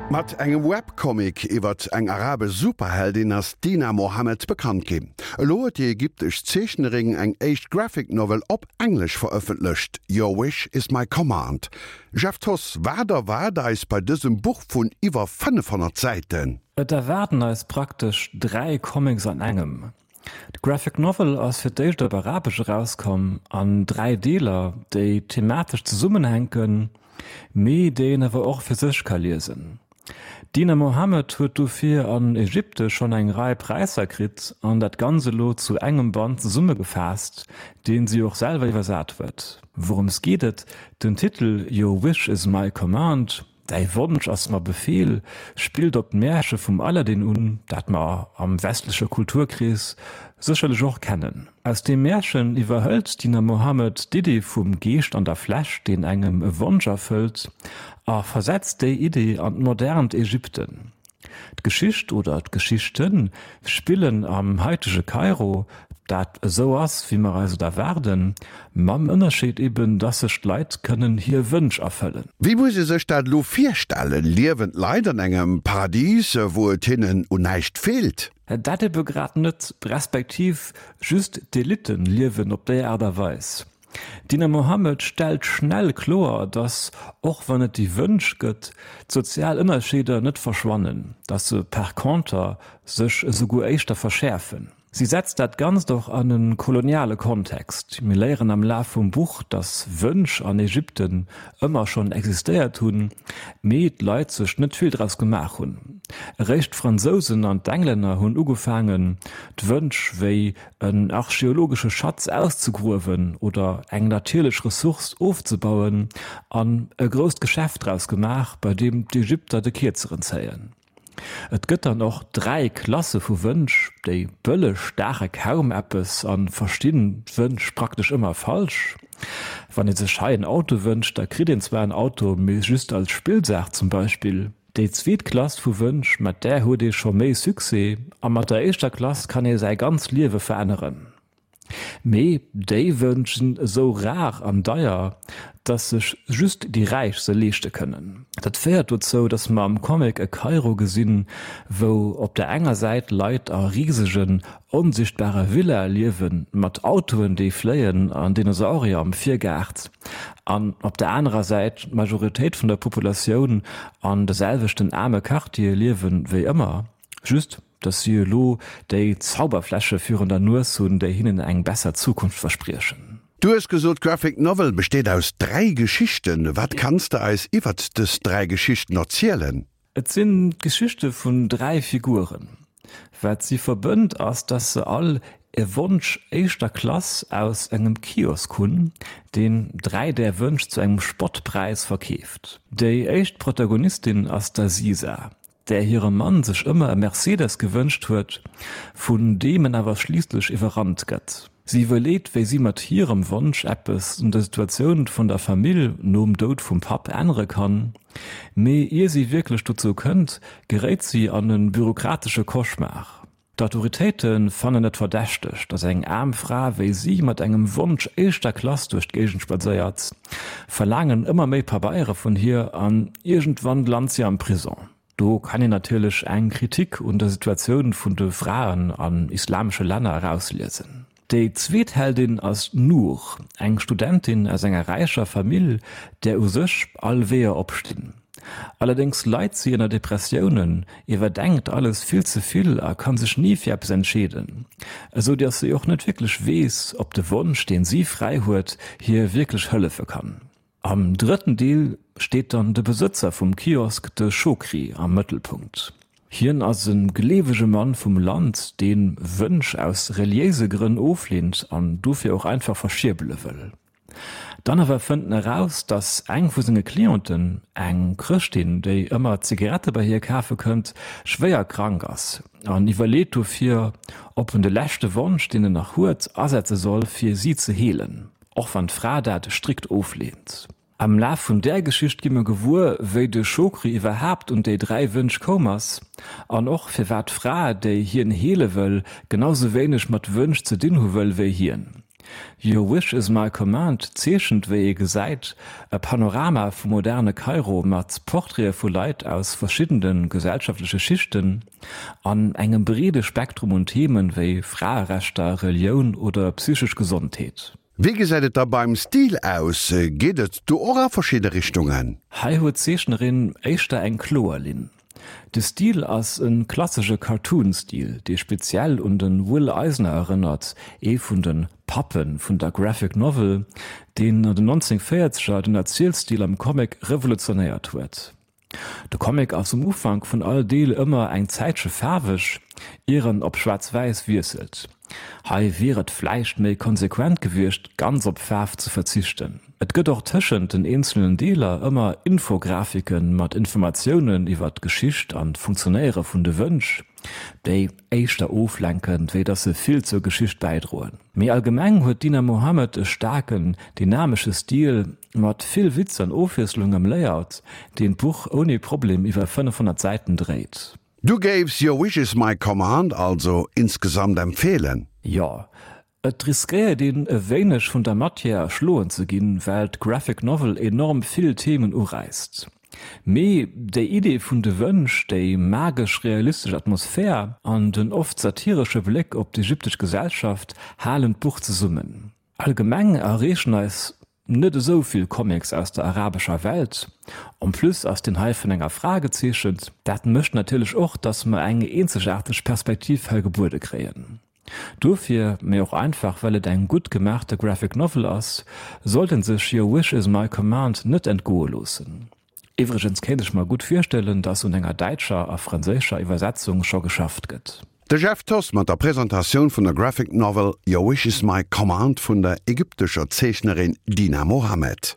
Mat engem Webcomic iwwert eng arabesch Superheldin ass d'Dina Mohamed bekannt ginn. Elo huet déi ägyptesch Zeechnerin eng éischt Graphic Novel op Englesch verëffentlecht, Your Wish is my Command. Jeff Thoss, wat erwaart eis bei dësem Buch vun iwwer 500 Säiten? Et erwaarden eis praktesch 3 Comics an engem. D'Graphic Novel ass fir d'éischt op Arabesch erauskomm, an 3 Deeler, déi thematesch zesummenhänken, mee déi een awer och fir sech ka liesen. D'Dina Mohamed huet dofir an Ägypte schonn eng Rei Präisser kritt an dat Ganzt elo zu engem Band zesummegefaasst, deen si och selwer iwwersat huet. Wourëms geet et? Den Titel Your Wish is my command Däi Wonsch ass mer Befehl spillt op d'Märche vum Aladdin un, dat mer am westleche Kulturkrees sécherlech och kennen. Aus deem Märchen iwwerhëlt d'Dina Mohamed d'Idee vum Geescht an der Fläsch, deen engem e Wonsch erfëllt, a versetzt déi Idee an d'modernt Ägypten. D'Geschicht oder d'Geschichten spillen am haitege Kairo, dat esou ass, wéi mer eis et erwaarden, mam Ënnerscheed eben, dass sech d'Leit kënnen hir Wënsch erfëllen. Wéi muss ee sech dat elo virstellen? Liewen d'Leit an engem Paradis, wou et hinnen un näischt feelt? Dat ebe grad net, respektiv just d'Elitten liewen op déi Aart a Weis. D'Dina Mohamed stellt schnell kloer, datt, och wann et déi Wënsch gëtt, d'sozial Ënnerscheeder net verschwannen, datt se par conter sech esouguer éischter verschäerfen. Si setzt dat Ganzt och an e koloniale Kontext. Mir léieren am Laf vum Buch, datt Wënsch an Ägypten ëmmer schonn existéiert hunn, mee d'Leit sech net vill draus gemaach hunn. Eréischt d'Fransousen an d'Englänner hunn ugefaangen, d'Wënsch wéi en archeologesche Schatz auszegruewen oder eng natierlech Ressource ofzebauen an e grousst Geschäft draus gemaach, bei deem d'Ägypter de Kierzeren zéien. Et gëtt dann och 3 Klasse vu Wënsch, déi bëlleg daache kaum eppes a verstinn d'Wënsch praktesch ëmmer falsch. Wann ee sech hei en Auto wënscht, da kritt een zwar en Auto, mee just als Spillsaach zum Beispill. Déi zweet Klass vu Wënsch, mat där huet ee scho méi Succès, a mat der éischter Klass kann ee säi ganz Liewe veränneren. Mee déi Wënsch sinn esou rar an deier, dass sech just déi Räich se leeschte kënnen. Dat féiert dozou, dass mer am Comic e Kairo gesinn, wou op der enger Säit Leit a risegen, onsichtbare Villae liewen, mat Autoen déi fléien an Dinosaurier am Virgaart, an op der anerer Säit d'Majoritéit vun der Populatioun an de selwechten aarme Quartiere liewen wéi ëmmer, just dass si elo déi Zauberfläsche virun der Nues hunn, déi hinnen eng besser Zukunft verspriechen. Du hues gesot, d'Graphic Novel besteet aus 3 Geschichten. Wat kanns de eis iwwert dës 3 Geschichten erzielen? Et sinn d'Geschichte vun 3 Figuren. Wat si verbënnt ass, dass se all e Wonsch éischter Klass aus engem Kiosk hunn, deen 3 där Wënsch zu engem Spottpräis verkeeft. Déi éischt Protagonistin ass d'Aziza, där hire Mann sech ëmmer e Mercedes gewënscht huet, vun deem en awer schliisslech iwwerrannt gëtt. Si iwwerleet, wéi si mat hirem Wonsch eppes un der Situatioun vun der Famill nom Doud vum Papp ännere kann. Mee ier si wierklech dozou kënnt, geréit si an e bürokratesche Cauchemar. D'Autoritéite fannen et verdächteg, datt eng aarm Fra wéi si mat engem Wonsch éischter Klass duerch d'Géigend spadséiert, verlaangen ëmmer méi Pabeiere vun hir an iergendwann lant si am Prison. Do kann een natierlech eng Kritik un der Situatioun vun de Fraen an islamesche Länner erausliesen. Déi zweet Heldin ass d'Nour, eng Studentin aus enger räicher Famill, där u sech all Weeër opstinn. Allerdéngs leit si ënner Depressiounen, iwwerdenkt alles vill ze vill a kann sech ni fir eppes entscheeden, esou dass si och net wierklech weess, ob de Wonsch, deen si fräi huet, hir wierklech hëllefe kann. Am drëtten Deel steet dann de Besëtzer vum Kiosk, de Chokri, am Mëttelpunkt. Hien ass e gleewege Mann vum Land, dee Wënsch aus reliéise Grënn ofleent an dofir och einfach verschierbele wëll. Dann awer fënnt en eraus, datt eng vu senge Clienten, eng Chrëschtin, déi ëmmer Zigarette bei hie kafe kënnt, schwéier krank ass an iwwerleet dofir, ob en de leschte Wonsch, deen en nach huet, asetze soll, fir si ze heelen. Och wann d'Fra dat strikt ofleent. Am Laf vun där Geschicht gi mer gewuer, wéi de Chokri iwwerhaapt un déi 3 Wënsch koum ass an och firwat d'Fra, déi hien heele wëll, genau sou wéineg mat Wënsch ze dinn hu wëll wéi hien. Your Wish Is My Command zeechent, wéi ee gesäit, e Panorama vum moderne Kairo mat Portraite vu Leit aus verschiddene gesellschaftleche Schichten an engem breede Spektrum un Themen wéi Fraerechter, Relioun oder psychesch Gesondheet. Wéi gesäit et da beim Stil aus? Geet et do och a verschidde Richtungen? Hei huet d'Zeechnerin éischter eng kloer Linn. De Stil ass e klassesche Cartoon-Stil, dee speziell un de Will Eisner erënnert, ee vun de Pappe vun der Graphic Novel, deen an den 1940er den Erzielstil am Comic revolutionéiert huet. De Comic ass um Ufank vun all Deel ëmmer eng Zäitche faarweg, ier en op schwaarz-wäiss wiesselt. Hei wier et vläicht méi konsequent gewiescht, ganz op Faarf ze verzichten. Et gëtt och tëschent den eenzelnen Deeler ëmmer Infografike mat Informatiounen iwwer d'Geschicht an d'Funktionéiere vun de Wënsch, déi éischter oflenken, wéi dass se vill zur Geschicht bäidroen. Méi allgemeng huet d'Dina Mohamed e staarken, dynamesche Stil mat vill Witz an Ofwiesslung am Layout, deen d'Buch ouni Problem iwwer 500 Säiten dréit. Du géifs Your Wish Is My Command also insgesamt empfehlen? Jo, et riskéiert een e wéineg vun der Matière erschloen ze ginn, well d'Graphic Novel enorm vill Themen uräisst. Mee déi Idee vun de Wënsch, déi magesch-realistesch Atmosphär an den oft satiresche Bléck op d'ägyptesch Gesellschaft halen d'Buch zesummen. Allgemeng erreechen eis net esou vill Comics aus der arabescher Welt. En plus ass deen hei vun enger Fra gezeechent. Dat mécht natierlech och, dass mer eng eenzegaarteg Perspektiv hei gebuede kréien. Dofir, mee och einfach well et eng gutt gemaachte Graphic Novel ass, sollt en sech Your Wish Is My Command net entgoe loossen. Iwwregens kéint ech mer gutt virstellen, dass un enger däitscher a franséischer Iwwersetzung scho geschafft gëtt. De Jeff Thoss mat der Presentatioun vun der Graphic Novel Your Wish Is My Command vun der ägyptescher Zeechnerin Dina Mohamed.